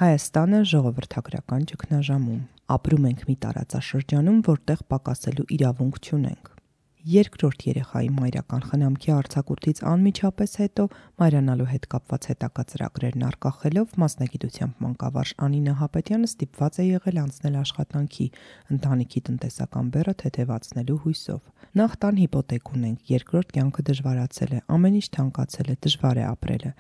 Հայաստանը ժողովրդագրական ճգնաժամում։ Ապրում ենք մի տարածաշրջանում, որտեղ պակասելու իրավունք չունենք։ Երկրորդ երեխայի մայրական խնամքի արձակուրդից անմիջապես հետո մայրանալու հետ կապված հետագա ծրագրերն արգախելով մասնագիտությամբ մանկավարժ Անի Նահապետյանը ստիպված է եղել անցնել աշխատանքի, ընտանիքի տնտեսական բեռը թեթևացնելու հույսով։ Նախ տան հիպոթեք ունենք, երկրորդ կյանքը դժվարացել է, ամեն ինչ թանկացել է, դժվար է ապրելը։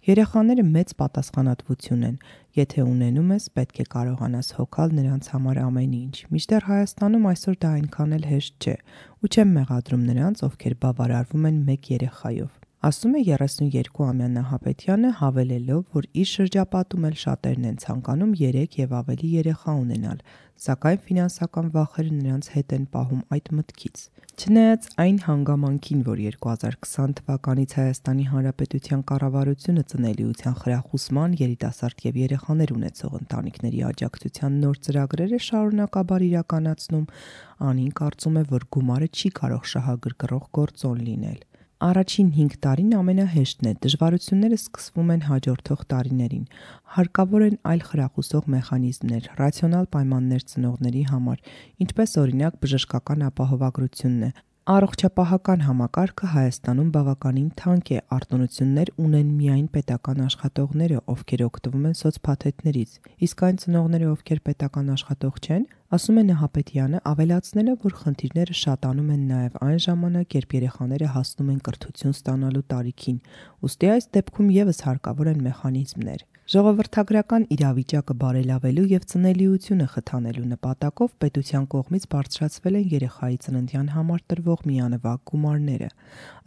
Երեխաները մեծ պատասխանատվություն են։ Եթե ունենում ես, պետք է կարողանաս հոգալ նրանց համար ամեն ինչ։ Մինչդեռ Հայաստանում այսօր դա այնքան էլ հեշտ չէ, ու չեմ մեղադրում նրանց, ովքեր բավարարվում են մեկ երեխայով։ Ասում է 32-ամյա Նահապետյանը, հավելելով, որ իր շրջապատում էլ շատերն են ցանկանում 3 եւ ավելի երեխա ունենալ, սակայն ֆինանսական վախերը նրանց հետ են պահում այդ մտքից։ Չնայած այն հանգամանքին, որ 2020 թվականից Հայաստանի Հանրապետության կառավարությունը ծնելիության խրախուսման, երիտասարդ եւ երեխաներ ունեցող ընտանիքների աջակցության նոր ծրագրեր է շարունակաբար իրականացնում, Անին կարծում է, որ գումարը չի կարող շահագրգռող գործոն լինել։ Առաջին 5 տարին ամենահեշտն է, դժվարությունները սկսվում են հաջորդող տարիներին։ Հարկավոր են այլ խրախուսող մեխանիզմներ, ռացիոնալ պայմաններ ծնողների համար, ինչպես օրինակ բժշկական ապահովագրությունն է։ Առողջապահական համակարգը Հայաստանում բավականին թանկ է, արտոնություններ ունեն միայն պետական աշխատողները, ովքեր օգտվում են սոցփաթեթներից, իսկ այն ծնողները, ովքեր պետական աշխատող չեն, ասում է Նահապետյանը, ավելացնելով, որ խնդիրները շատանում են նաև այն ժամանակ, երբ երեխաները հասնում են կրթություն ստանալու տարիքին, ուստի այս դեպքում եւս հարկավոր են մեխանիզմներ։ Ժողովրդագրական իրավիճակը բարելավելու եւ ծնելիությունը խթանելու նպատակով պետության կողմից բարձրացվել են երեխայի ծննդյան համար տրվող միանվագ գումարները։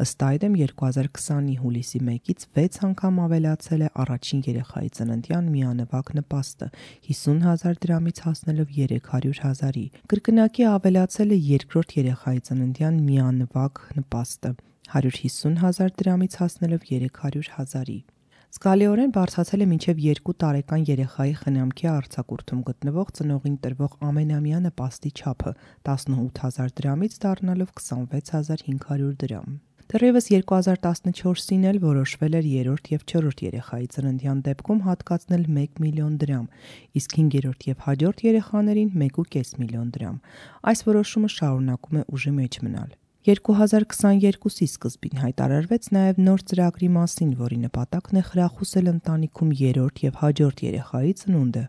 Ըստ այդմ 2020-ի հուլիսի 1-ից 6 անգամ ավելացել է առաջին երեխայի ծննդյան միանվագ նպաստը 50,000 դրամից հասնելով 300,000-ի։ Կրկնակի ավելացել է երկրորդ երեխայի ծննդյան միանվագ նպաստը 150,000 դրամից հասնելով 300,000-ի։ Զգալիորեն բարձրացել է մինչև 2 տարեկան երեխայի խնամքի արձակուրդում գտնվող ծնողին տրվող ամենամյա նպաստի չափը 18,000 դրամից դառնալով 26,500 դրամ։ Դեռևս 2014-ին էլ որոշվել էր երրորդ եւ չորրորդ երեխայի ծննդյան դեպքում հատկացնել 1 միլիոն դրամ, իսկ 5-րդ եւ հաջորդ երեխաներին 1,5 միլիոն դրամ։ Այս որոշումը շարունակում է ուժի մեջ մնալ։ 2022-ի սկզբին հայտարարվեց նաև նոր ծրագրի մասին, որի նպատակն է խրախուսել ընտանիքում երրորդ եւ հաջորդ երեխայի ծնունդը։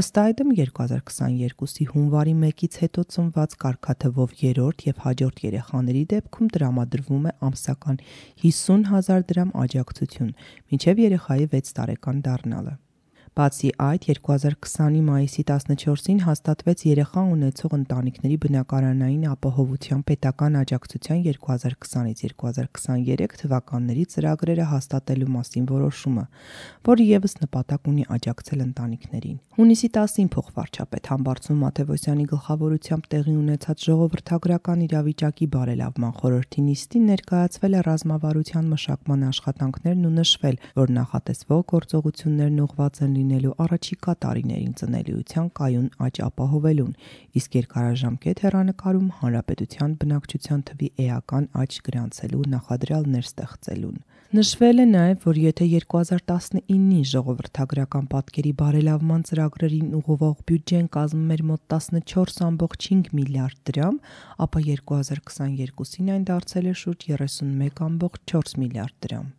Ըստ այդմ 2022-ի հունվարի 1-ից հետո ծնված կարգաթվով երրորդ եւ հաջորդ երեխաների դեպքում տրամադրվում է ամսական 50,000 դրամ աջակցություն, մինչև երեխայի 6 տարեկան դառնալը։ Բացի այդ, 2020-ի մայիսի 14-ին հաստատվեց երեխա ունեցող ընտանիքների բնակարանային ապահովության պետական աջակցության 2020-ից 2023 թվականների ծրագրերը հաստատելու մասին որոշումը, որը եւս նպատակ ունի աջակցել ընտանիքներին։ Հունիսի 10-ին փոխվարչապետ Համբարձում Մաթևոսյանի գլխավորությամբ տեղի ունեցած ժողովրդագրական իրավիճակի բարելավման խորհրդի նիստին ներկայացվել է ռազմավարության մշակման աշխատանքներն ու նշվել, որ նախատեսվող գործողություններն ուղղված են լինելու առաջիկա տարիներին ծնելիության կայուն աճ ապահովելուն, իսկ երկարաժամկետ հեռանկարում հանրապետության բնակչության թվի էական աճ գրանցելու նախադրյալներ ստեղծելուն։ Նշվել է նաև, որ եթե 2019-ի ժողովրդագրական պատկերի բարելավման ծրագրերին ուղղվող բյուջեն կազմում էր մոտ 14,5 միլիարդ դրամ, ապա 2022-ին այն դարձել է շուրջ 31,4 միլիարդ դրամ։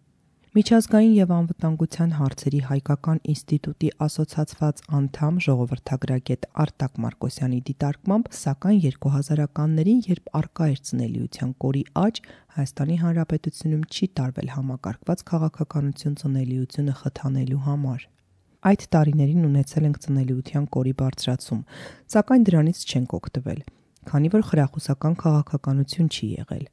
Միջազգային եւ անվտանգության հարցերի հայկական ինստիտուտի ասոցացված անդամ ժողովրդագրագետ Արտակ Մարկոսյանի դիտարկմամբ, սակայն 2000-ականներին, երբ առկա էր ծնելիության կորի աճ, Հայաստանի Հանրապետությունում չի տարվել համակարգված քաղաքականություն ծնելիությունը խթանելու համար։ Այդ տարիներին ունեցել ենք ծնելիության կորի բարձրացում, սակայն դրանից չենք օգտվել, քանի որ խրախուսական քաղաքականություն չի եղել,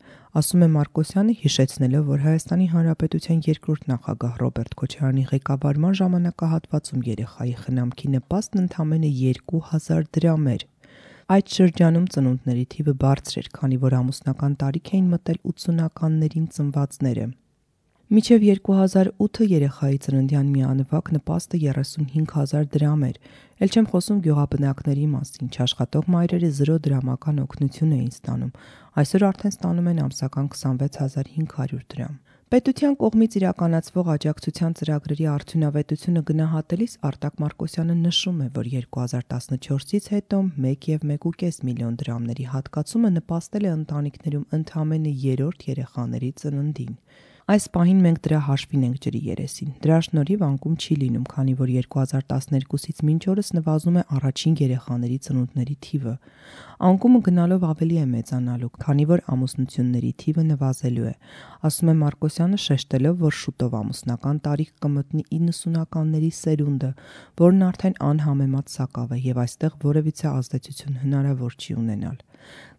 ասում է Մարկոսյանը, հիշեցնելով, որ Հայաստանի Հանրապետության երկրորդ նախագահ Ռոբերտ Քոչարյանի ղեկավարման ժամանակահատվածում երեխայի խնամքի նպաստն ընդամենը 2,000 դրամ էր։ Այդ շրջանում ծնունդների թիվը բարձր էր, քանի որ ամուսնական տարիք էին մտել 80-ականներին ծնվածները։ Մինչև 2008 երեխայի ծննդյան միանվագ նպաստը 35,000 դրամ էր, էլ չեմ խոսում գյուղաբնակների մասին, չաշխատող մայրերը 0 դրամական օգնություն էին ստանում, այսօր արդեն ստանում են ամսական 26,500 դրամ։ Պետության կողմից իրականացվող աջակցության ծրագրերի արդյունավետությունը գնահատելիս Արտակ Մարկոսյանը նշում է, որ 2014-ից հետո 1.5 միլիոն դրամների հատկացումը նպաստել է ընտանիքներում ընդամենը 3-րդ երեխաների ծննդին։ Այս պահին մենք դրա հաշվին ենք ջրի երեսին։ Դրա շնորհիվ անկում չի լինում, քանի որ 2012-ից մինչ օրս նվազում է առաջին երեխաների ծնունդների թիվը։ Անկումը գնալով ավելի է մեծանալու, քանի որ ամուսնությունների թիվը նվազելու է, ասում է Մարկոսյանը, շեշտելով, որ շուտով ամուսնական տարիք կմտնի 90-ականների սերունդը, որն արդեն անհամեմատ սակավ է եւ այստեղ որևիցե ազդեցություն հնարավոր չի ունենալ։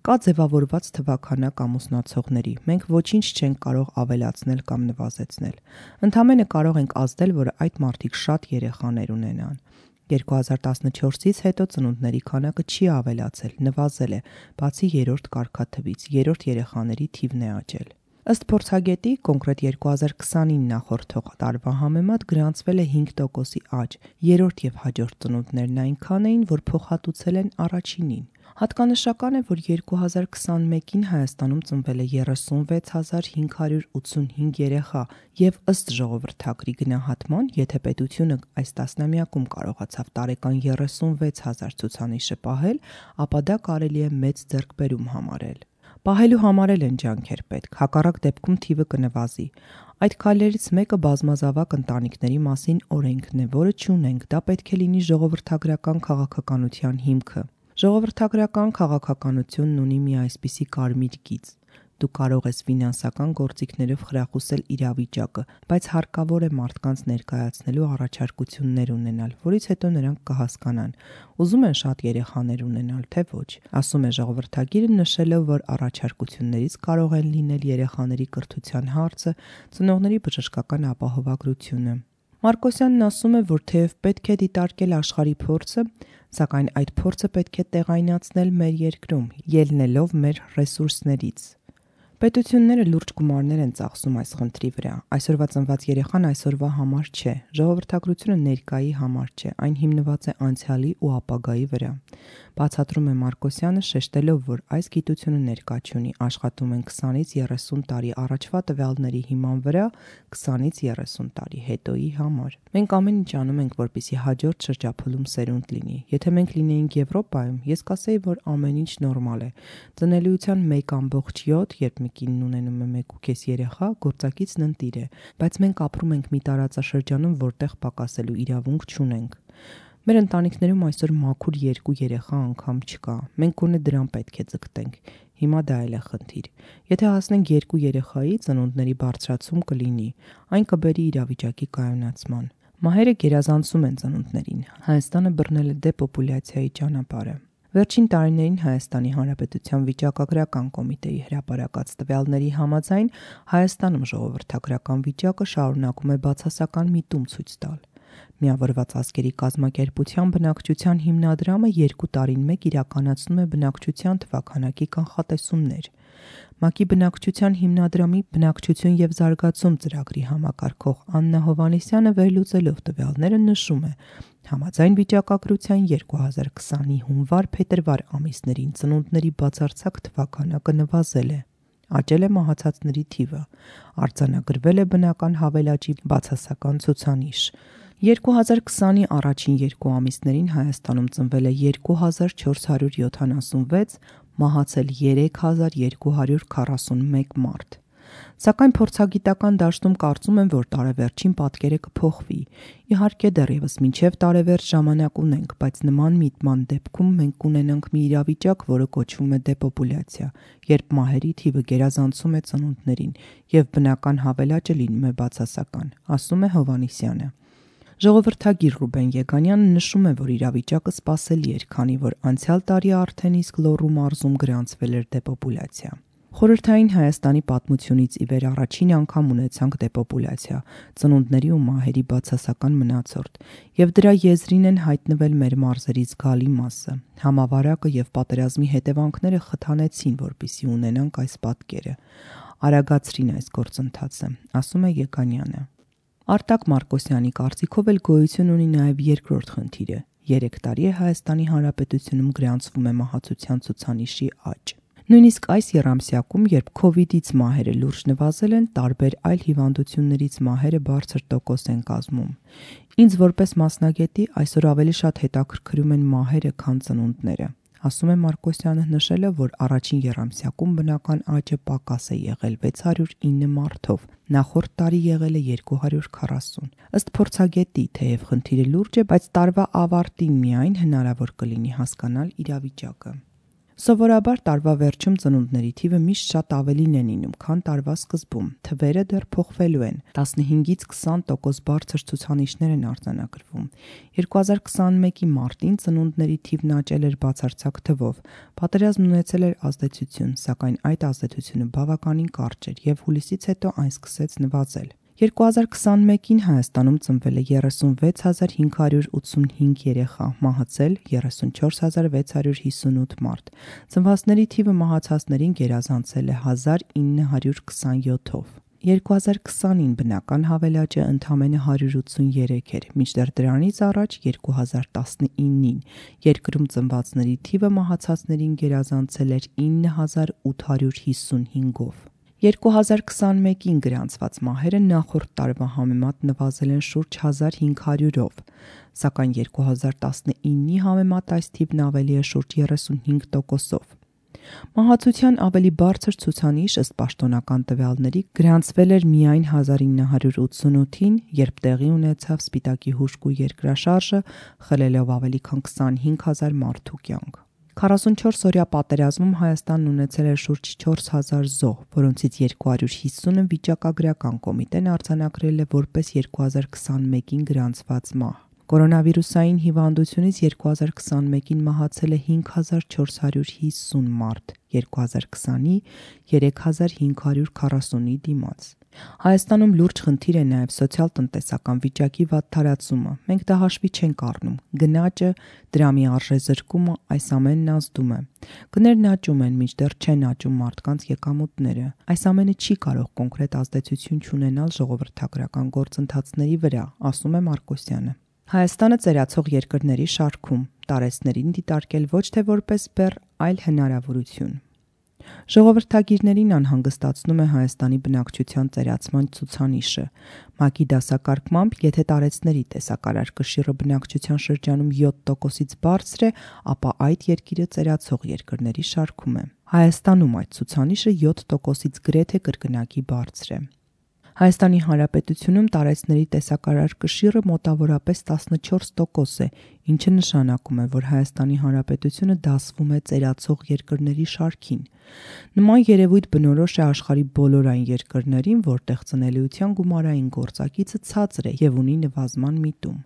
Կա ձևավորված թվաքանակ ամուսնացողների, մենք ոչինչ չենք կարող ավելացնել կամ նվազեցնել։ Ընդամենը կարող ենք ազդել, որ այդ մարդիկ շատ երեխաներ ունենան։ 2014-ից հետո ծնունդների քանակը չի ավելացել, նվազել է, բացի 3-րդ կարգաթվից, 3-րդ երեխաների թիվն է աճել։ Ըստ փորձագետի, կոնկրետ 2020-ին նախորդող տարվա համեմատ գրանցվել է 5%-ի աճ, 3-րդ եւ հաջորդ ծնունդներն այնքան էին, որ փոխհատուցել են առաջինին։ Հատկանշական է, որ 2021-ին Հայաստանում ծնվել է 36585 երեխա եւ ըստ ժողովրդագրի գնահատման, եթե պետությունը այս տասնամյակում կարողացավ տարեկան 36000 ցուցանիշը պահել, ապա դա կարելի է մեծ ձեռքբերում համարել։ Պահելու համար էլ են ջանքեր պետք, հակառակ դեպքում թիվը կնվազի։ Այդ քայլերից մեկը բազմազավակ ընտանիքների մասին օրենքն է, որը չունենք, դա պետք է լինի ժողովրդագրական քաղաքականության հիմքը։ Ժողովրդագրական քաղաքականությունն ունի մի այսպիսի կարմիր գիծ. դու կարող ես ֆինանսական գործիքներով խրախուսել իրավիճակը, բայց հարկավոր է մարդկանց ներկայացնելու առաջարկություններ ունենալ, որից հետո նրանք կհասկանան, ուզում են շատ երեխաներ ունենալ, թե ոչ, ասում է ժողովրդագիրը, նշելով, որ առաջարկություններից կարող են լինել երեխաների կրթության հարցը, ծնողների բժշկական ապահովագրությունը։ Մարկոսյանն ասում է, որ թեև պետք է դիտարկել աշխարհի փորձը, սակայն այդ փորձը պետք է տեղայնացնել մեր երկրում, ելնելով մեր ռեսուրսներից։ Պետությունները լուրջ գումարներ են ծախսում այս խնդրի վրա։ Այսօրվա ծնված երեխան այսօրվա համար չէ, ժողովրդագրությունը ներկայի համար չէ, այն հիմնված է անցյալի ու ապագայի վրա։ Բացատրում է Մարկոսյանը, շեշտելով, որ այս գիտությունը ներկա չունի, աշխատում են 20-ից 30 տարի առաջվա տվյալների հիման վրա, 20-ից 30 տարի հետոյի համար։ Մենք ամեն ինչ անում ենք, որպեսզի հաջորդ շրջափուլում սերունդ լինի։ Եթե մենք լինեինք Եվրոպայում, ես կասեի, որ ամեն ինչ նորմալ է։ Ծնելիության 1.7, երբ մի կինն ունենում է 1.5 երեխա, գործակիցն ընտիր է, բայց մենք ապրում ենք մի տարածաշրջանում, որտեղ պակասելու իրավունք չունենք։ Մեր ընտանիքներում այսօր մաքուր 2 երեխա անգամ չկա։ Մենք գոնե դրան պետք է ձգտենք։ Հիմա դա էլ է խնդիր։ Եթե հասնենք 2 երեխայի, ծնունդների բարձրացում կլինի, այն կբերի իրավիճակի կայունացման։ Մահերը գերազանցում են ծնունդներին։ Հայաստանը բռնել է դեպոպուլյացիայի ճանապարհը։ Վերջին տարիներին Հայաստանի Հանրապետության վիճակագրական կոմիտեի հրապարակած տվյալների համաձայն Հայաստանում ժողովրդագրական վիճակը շարունակում է բացասական միտում ցույց տալ։ Միավորված ազգերի կազմակերպության բնակչության հիմնադրամը 2 տարին մեկ իրականացնում է բնակչության թվաքանակի կանխատեսումներ։ ՄԱԿ-ի բնակչության հիմնադրամի բնակչություն եւ զարգացում ծրագրի համակարգող Աննա Հովհաննիսյանը վերլուծելով տվյալները նշում է. Համաձայն վիճակագրության 2020-ի հունվար-փետրվար ամիսներին ծնունդների բացարձակ թվաքանակը նվազել է։ Աճել է մահացածների թիվը, արձանագրվել է բնական հավելաճի բացասական ցուցանիշ։ 2020-ի առաջին 2 ամիսներին Հայաստանում ծնվել է 2476, մահացել 3241 մարդ։ Սակայն փորձագիտական դաշտում կարծում են, որ տարեվերջին պատկերը կփոխվի։ Իհարկե դեռևս մինչև տարեվերջ ժամանակ ունենք, բայց նման միտման դեպքում մենք կունենանք մի իրավիճակ, որը կոչվում է դեպոպուլյացիա, երբ մահերի թիվը գերազանցում է ծնունդներին եւ բնական հավելաճը լինում է բացասական, ասում է Հովհաննիսյանը։ Ժողովրդագիր Ռուբեն Եգանյանը նշում է, որ իրավիճակը սպասելի էր, քանի որ անցյալ տարի արդեն իսկ Լոռու մարզում գրանցվել էր դեպոպուլյացիա։ Խորհրդային Հայաստանի պատմությունից ի վեր առաջին անգամ ունեցանք դեպոպուլյացիա, ծնունդների ու մահերի բացասական մնացորդ, եւ դրա եզրին են հայտնվել մեր մարզերի զգալի մասը։ Համավարակը եւ պատերազմի հետևանքները խթանեցին, որպեսզի ունենանք այս պատկերը։ Արագացրին այս գործընթացը, ասում է Եգանյանը։ Արտակ Մարկոսյանի կարծիքով էլ գոյություն ունի նաև երկրորդ խնդիրը։ 3 տարի է Հայաստանի Հանրապետությունում գրանցվում է մահացության ցուցանիշի աճ։ Նույնիսկ այս եռամսյակում, երբ COVID-ից մահերը լուրջ նվազել են, տարբեր այլ հիվանդություններից մահերը բարձր տոկոս են կազմում։ Ինձ որպես մասնագետի այսօր ավելի շատ հետաքրքրում են մահերը, քան ծնունդները, ասում է Մարկոսյանը, նշելով, որ առաջին եռամսյակում բնական աճը պակաս է եղել 609 մարդով, նախորդ տարի եղել է 240։ Ըստ փորձագետի, թեև խնդիրը լուրջ է, բայց տարվա ավարտին միայն հնարավոր կլինի հասկանալ իրավիճակը։ Սովորաբար տարվա վերջում ծնունդների թիվը միշտ շատ ավելին է լինում, քան տարվա սկզբում։ Թվերը դեռ փոխվելու են։ 15-ից 20% բարձր ցուցանիշներ են արձանագրվում։ 2021-ի մարտին ծնունդների թիվն աճել էր բացարձակ թվով։ Պատերազմն ունեցել էր ազդեցություն, սակայն այդ ազդեցությունը բավականին կարճ էր եւ հուլիսից հետո այն սկսեց նվազել։ 2021-ին Հայաստանում ծնվել է 36585 երեխա, մահացել 34658 մարդ։ Ծնվածների թիվը մահացածներին գերազանցել է 1927-ով։ 2020-ին բնական հավելաճը ընդամենը 183 էր, մինչդեռ դրանից առաջ 2019-ին երկրում ծնվածների թիվը մահացածներին գերազանցել էր 9855-ով։ 2021-ին գրանցված մահերը նախորդ տարվա համեմատ նվազել են շուրջ 1500-ով, սակայն 2019-ի համեմատ այս թիվն ավելի է շուրջ 35%-ով։ Մահացության ավելի բարձր ցուցանիշ ըստ պաշտոնական տվյալների գրանցվել էր միայն 1988-ին, երբ տեղի ունեցավ Սպիտակի հուժկու երկրաշարժը, խլելով ավելի քան 25000 մարդու կյանք։ 44-օրյա պատերազմում Հայաստանն ունեցել էր շուրջ 4000 զոհ, որոնցից 250-ը վիճակագրական կոմիտեն արձանագրել է որպես 2021-ին գրանցված մահ։ Կորոնավիրուսային հիվանդությունից 2021-ին մահացել է 5450 մարդ, 2020-ի 3540-ի դիմաց։ Հայաստանում լուրջ խնդիր է նաև սոցիալ-տնտեսական վիճակի վատթարացումը։ Մենք դա հաշվի չենք առնում։ Գնաճը, դրամի արժեզրկումը, այս ամենն ազդում է։ Գներն աճում են, մինչդեռ չեն աճում մարդկանց եկամուտները։ Այս ամենը չի կարող կոնկրետ ազդեցություն չունենալ ժողովրդագրական գործընթացների վրա, ասում է Մարկոսյանը։ Հայաստանը ծերացող երկրների շարքում, տարեցներին դիտարկել ոչ թե որպես բեռ, այլ հնարավորություն։ Ժողովրդագիրներին անհանգստացնում է Հայաստանի բնակչության ծերացման ցուցանիշը։ ՄԱԿ-ի դասակարգմամբ, եթե տարեցների տեսակարար կշիռը բնակչության շրջանում 7%-ից բարձր է, ապա այդ երկիրը ծերացող երկրների շարքում է։ Հայաստանում այդ ցուցանիշը 7%-ից գրեթե կրկնակի բարձր է։ Հայաստանի Հանրապետությունում տարեցների տեսակարար կշիռը մոտավորապես 14% է, ինչը նշանակում է, որ Հայաստանի Հանրապետությունը դասվում է ծերացող երկրների շարքին։ Նման երևույթ բնորոշ է աշխարհի բոլոր այն երկրներին, որտեղ ծնելիության գումարային գործակիցը ցածր է եւ ունի նվազման միտում,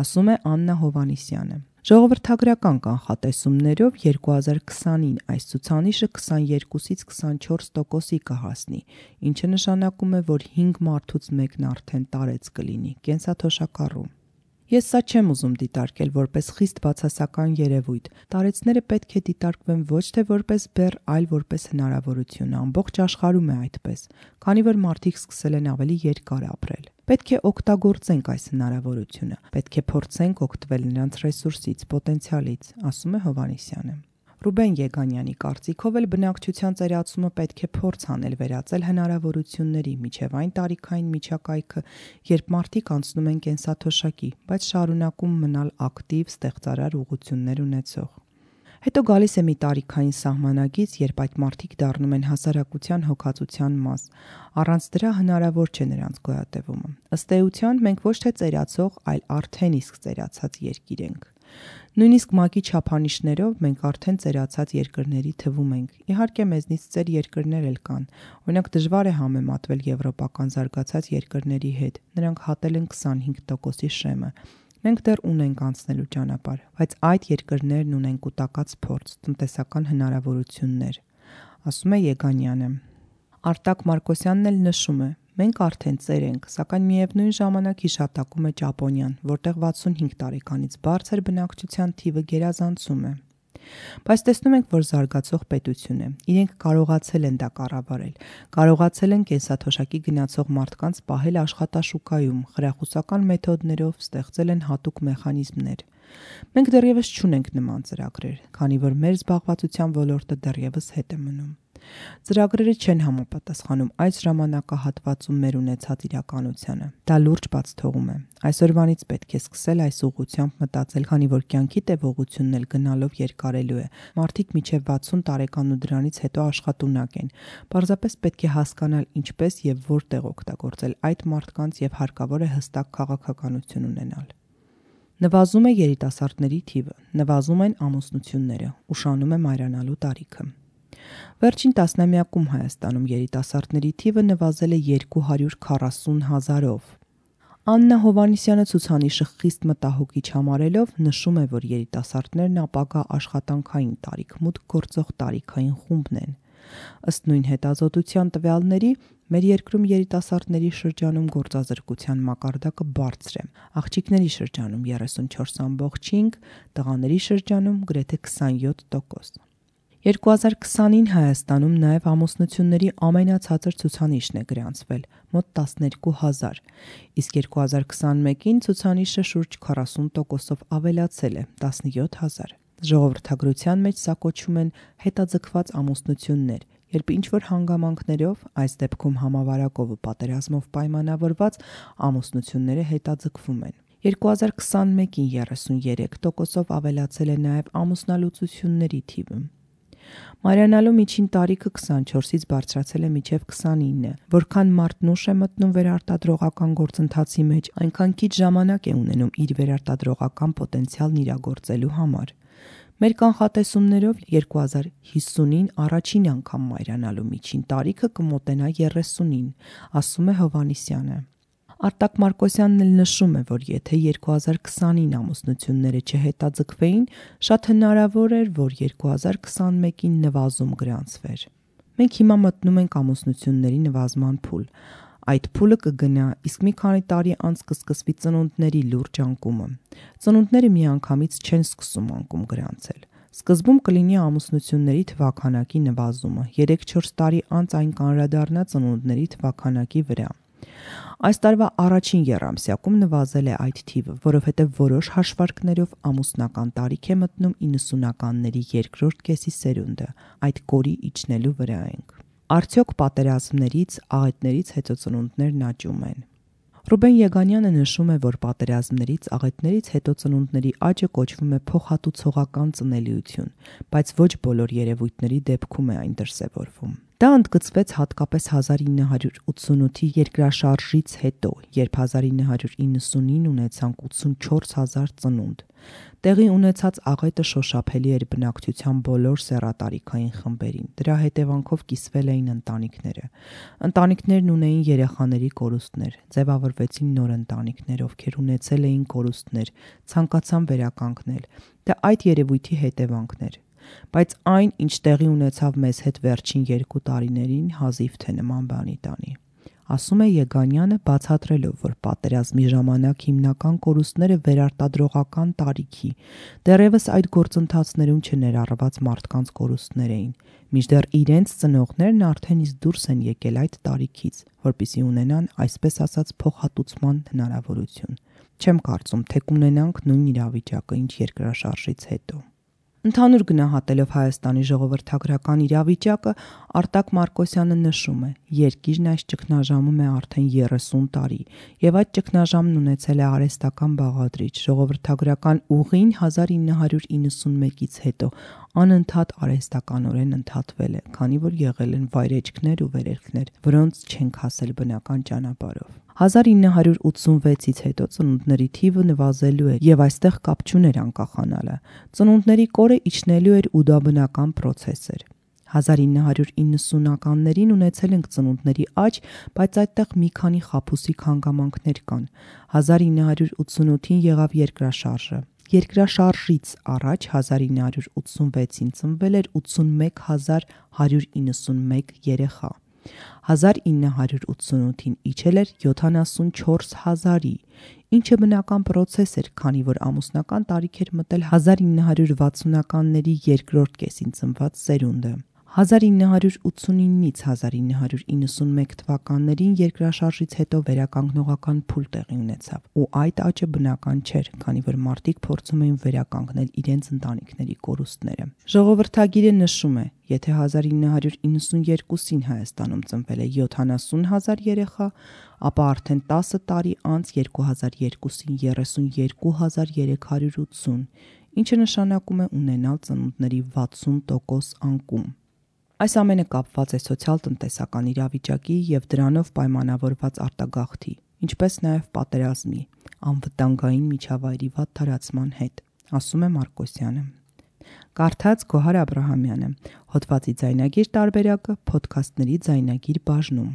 ասում է Աննա Հովհաննիսյանը։ Ժողովրդագրական կանխատեսումներով 2020-ին այս ցուցանիշը 22-ից 24%-ի կհասնի, ինչը նշանակում է, որ 5 մարդուց մեկն արդեն տարեց կլինի, կենսաթոշակառու։ Ես սա չեմ ուզում դիտարկել որպես խիստ բացասական երևույթ։ Տարեցները պետք է դիտարկվեն ոչ թե որպես բեռ, այլ որպես հնարավորություն։ Ամբողջ աշխարհում է այդպես, քանի որ մարդիկ սկսել են ավելի երկար ապրել։ Պետք է օգտագործենք այս հնարավորությունը։ Պետք է փորձենք օգտվել նրանց ռեսուրսից, պոտենցիալից, ասում է Հովհաննիսյանը։ Ռուբեն Եգանյանի կարծիքով էլ բնակչության ծերացումը պետք է փորձ անել վերածել հնարավորությունների, միջև այն տարիքային միջակայքը, երբ մարդիկ անցնում են կենսաթոշակի, բայց շարունակում մնալ ակտիվ, ստեղծարար ուղղություններ ունեցող։ Հետո գալիս է մի տարիքային սահմանագիծ, երբ այդ մարդիկ դառնում են հասարակության հոգացության մաս։ Առանց դրա հնարավոր չէ նրանց գոյատևումը։ Ըստ էության, մենք ոչ թե ծերացող, այլ արդեն իսկ ծերացած երկիր ենք։ Նույնիսկ ՄԱԿ-ի չափանիշներով մենք արդեն ծերացած երկրների թվում ենք։ Իհարկե մեզնից ծեր երկրներ էլ կան։ Օրինակ դժվար է համեմատվել եվրոպական զարգացած երկրների հետ։ Նրանք հատել են 25%-ի շեմը։ Մենք դեռ ունենք անցնելու ճանապարհ, բայց այդ երկրներն ունեն կուտակած փորձ, տնտեսական հնարավորություններ, ասում է Եգանյանը։ Արտակ Մարկոսյանն էլ նշում է. մենք արդեն ծեր ենք, սակայն միևնույն ժամանակ հիշատակում է Ճապոնիան, որտեղ 65 տարեկանից բարձր բնակչության թիվը գերազանցում է։ Բայց տեսնում ենք, որ զարգացող պետություն է։ Իրենք կարողացել են դա կառավարել, կարողացել են կենսաթոշակի գնացող մարդկանց պահել աշխատաշուկայում, խրախուսական մեթոդներով ստեղծել են հատուկ մեխանիզմներ։ Մենք դեռևս չունենք նման ծրագրեր, քանի որ մեր զբաղվածության ոլորտը դեռևս հետ է մնում։ Ծրագրերը չեն համապատասխանում այս ժամանակահատվածում մեր ունեցած իրականությանը։ Դա լուրջ բաց թողում է։ Այսօրվանից պետք է սկսել այս ուղղությամբ մտածել, քանի որ կյանքի տևողությունն էլ գնալով երկարելու է։ Մարդիկ մինչև 60 տարեկան ու դրանից հետո աշխատունակ են։ Պարզապես պետք է հասկանալ ինչպես եւ որտեղ օգտագործել այդ մարդկանց եւ հարկավոր է հստակ քաղաքականություն ունենալ։ Նվազում է երիտասարդների թիվը, նվազում են ամուսնությունները, ուշանում է մայրանալու տարիքը։ Վերջին տասնամյակում Հայաստանում երիտասարդների թիվը նվազել է 240 000-ով։ Աննա Հովհաննիսյանը ցուցանիշը խիստ մտահոգիչ համարելով նշում է, որ երիտասարդներն ապագա աշխատանքային տարիք-մուտք գործող տարիքային խումբն են։ Ըստ նույն հետազոտության տվյալների, մեր երկրում երիտասարդների շրջանում գործազրկության մակարդակը բարձր է։ Աղջիկների շրջանում 34.5, տղաների շրջանում գրեթե 27%։ 2020-ին Հայաստանում նաև ամուսնությունների ամենացածր ցուցանիշն է գրանցվել՝ մոտ 12,000, իսկ 2021-ին ցուցանիշը շուրջ 40%-ով ավելացել է՝ 17,000։ Ժողովրդագրության մեջ սա կոչվում են հետաձգված ամուսնություններ, երբ ինչ-որ հանգամանքներով, այս դեպքում համավարակով ու պատերազմով պայմանավորված ամուսնությունները հետաձգվում են։ 2021-ին 33%-ով ավելացել է նաև ամուսնալուծությունների թիվը։ Մայրանալու միջին տարիքը 24-ից բարձրացել է մինչև 29, որքան մարդն ուշ է մտնում վերարտադրողական գործընթացի մեջ, այնքան քիչ ժամանակ է ունենում իր վերարտադրողական պոտենցիալն իրագործելու համար։ Մեր կանխատեսումներով 2050-ին առաջին անգամ մայրանալու միջին տարիքը կմոտենա 30-ին, ասում է Հովհաննիսյանը։ Արտակ Մարկոսյանն էլ նշում է, որ եթե 2020-ին ամուսնությունները չհետաձգվեին, շատ հնարավոր էր, որ 2021-ին նվազում գրանցվեր։ Մենք հիմա մտնում ենք ամուսնությունների նվազման փուլ։ Այդ փուլը կգնա, իսկ մի քանի տարի անց կսկսվի ծնունդների լուրջ անկումը։ Ծնունդները միանգամից չեն սկսում անկում գրանցել։ Սկզբում կլինի ամուսնությունների թվաքանակի նվազումը, 3-4 տարի անց այն կանրադառնա ծնունդների թվաքանակի վրա։ Այս տարվա առաջին եռամսյակում նվազել է այդ թիվը, որովհետև որոշ հաշվարկներով ամուսնական տարիք է մտնում 90-ականների երկրորդ կեսի սերունդը, այդ կորի իջնելու վրա ենք։ Արդյոք պատերազմներից, աղետներից հետո ծնունդներն աճում են։ Ռուբեն Եգանյանը նշում է, որ պատերազմներից, աղետներից հետո ծնունդների աճը կոչվում է փոխհատուցողական ծնելիություն, բայց ոչ բոլոր երևույթների դեպքում է այն դրսևորվում։ Դա ընդգծվեց հատկապես 1988-ի երկրաշարժից հետո, երբ 1990-ին ունեցանք 84,000 ծնունդ։ Տեղի ունեցած աղետը շոշափելի էր բնակչության բոլոր սեռատարիքային խմբերին։ Դրա հետևանքով կիսվել էին ընտանիքները։ Ընտանիքներն ունեին երեխաների կորուստներ, ձևավորվեցին նոր ընտանիքներ, ովքեր ունեցել էին կորուստներ, ցանկացան վերականգնել։ Դա այդ երևույթի հետևանքն էր։ Բայց այն, ինչ տեղի ունեցավ մեզ հետ վերջին 2 տարիներին, հազիվ թե նման բանի տանի։ Ասում է Եգանյանը, բացատրելով, որ պատերազմի ժամանակ հիմնական կորուստները վերարտադրողական տարիքի, դեռևս այդ գործընթացներում չներառված մարդկանց կորուստներ էին, մինչդեռ իրենց ծնողներն արդեն իսկ դուրս են եկել այդ տարիքից, որպեսզի ունենան, այսպես ասած, փոխհատուցման հնարավորություն։ Չեմ կարծում, թե կունենանք նույն իրավիճակը, ինչ երկրաշարժից հետո։ Ընդհանուր գնահատելով Հայաստանի ժողովրդագրական իրավիճակը, Արտակ Մարկոսյանը նշում է. երկիրն այս ճգնաժամում է արդեն 30 տարի, եւ այդ ճգնաժամն ունեցել է արհեստական բաղադրիչ, ժողովրդագրական ուղին 1991-ից հետո անընդհատ արհեստականորեն ընդհատվել է, քանի որ եղել են վայրեջքներ ու վերելքներ, որոնց չենք հասել բնական ճանապարհով։ 1986-ից հետո ծնունդների թիվը նվազելու է եւ այստեղ կապ չուներ անկախանալը։ Ծնունդների կորը իջնելու էր ու դա բնական պրոցես էր։ 1990-ականներին ունեցել ենք ծնունդների աճ, բայց այդտեղ մի քանի խաբուսիկ հանգամանքներ կան։ 1988-ին եղավ երկրաշարժը։ Երկրաշարժից առաջ 1986-ին ծնվել էր 81191 երեխա։ 1988-ին իջել էր 74,000-ի, ինչը բնական պրոցես էր, քանի որ ամուսնական տարիք էր մտել 1960-ականների երկրորդ կեսին ծնված սերունդը։ 1989-ից 1991 թվականներին երկրաշարժից հետո վերականգնողական փուլ տեղի ունեցավ, ու այդ աճը բնական չէր, քանի որ մարդիկ փորձում էին վերականգնել իրենց ընտանիքների կորուստները։ Ժողովրդագիրը նշում է, եթե 1992-ին Հայաստանում ծնվել է 70,000 երեխա, ապա արդեն 10 տարի անց 2002-ին 32,380, ինչը նշանակում է ունենալ ծնունդների 60% անկում։ Այս ամենը կապված է սոցիալ-տնտեսական իրավիճակի և դրանով պայմանավորված արտագաղթի, ինչպես նաև պատերազմի, անվտանգային միջավայրի վատ տարածման հետ, ասում է Մարկոսյանը։ Կարդաց Գոհար Աբրահամյանը, հոդվածի ձայնագիր տարբերակը Փոդքասթների ձայնագիր բաժնում։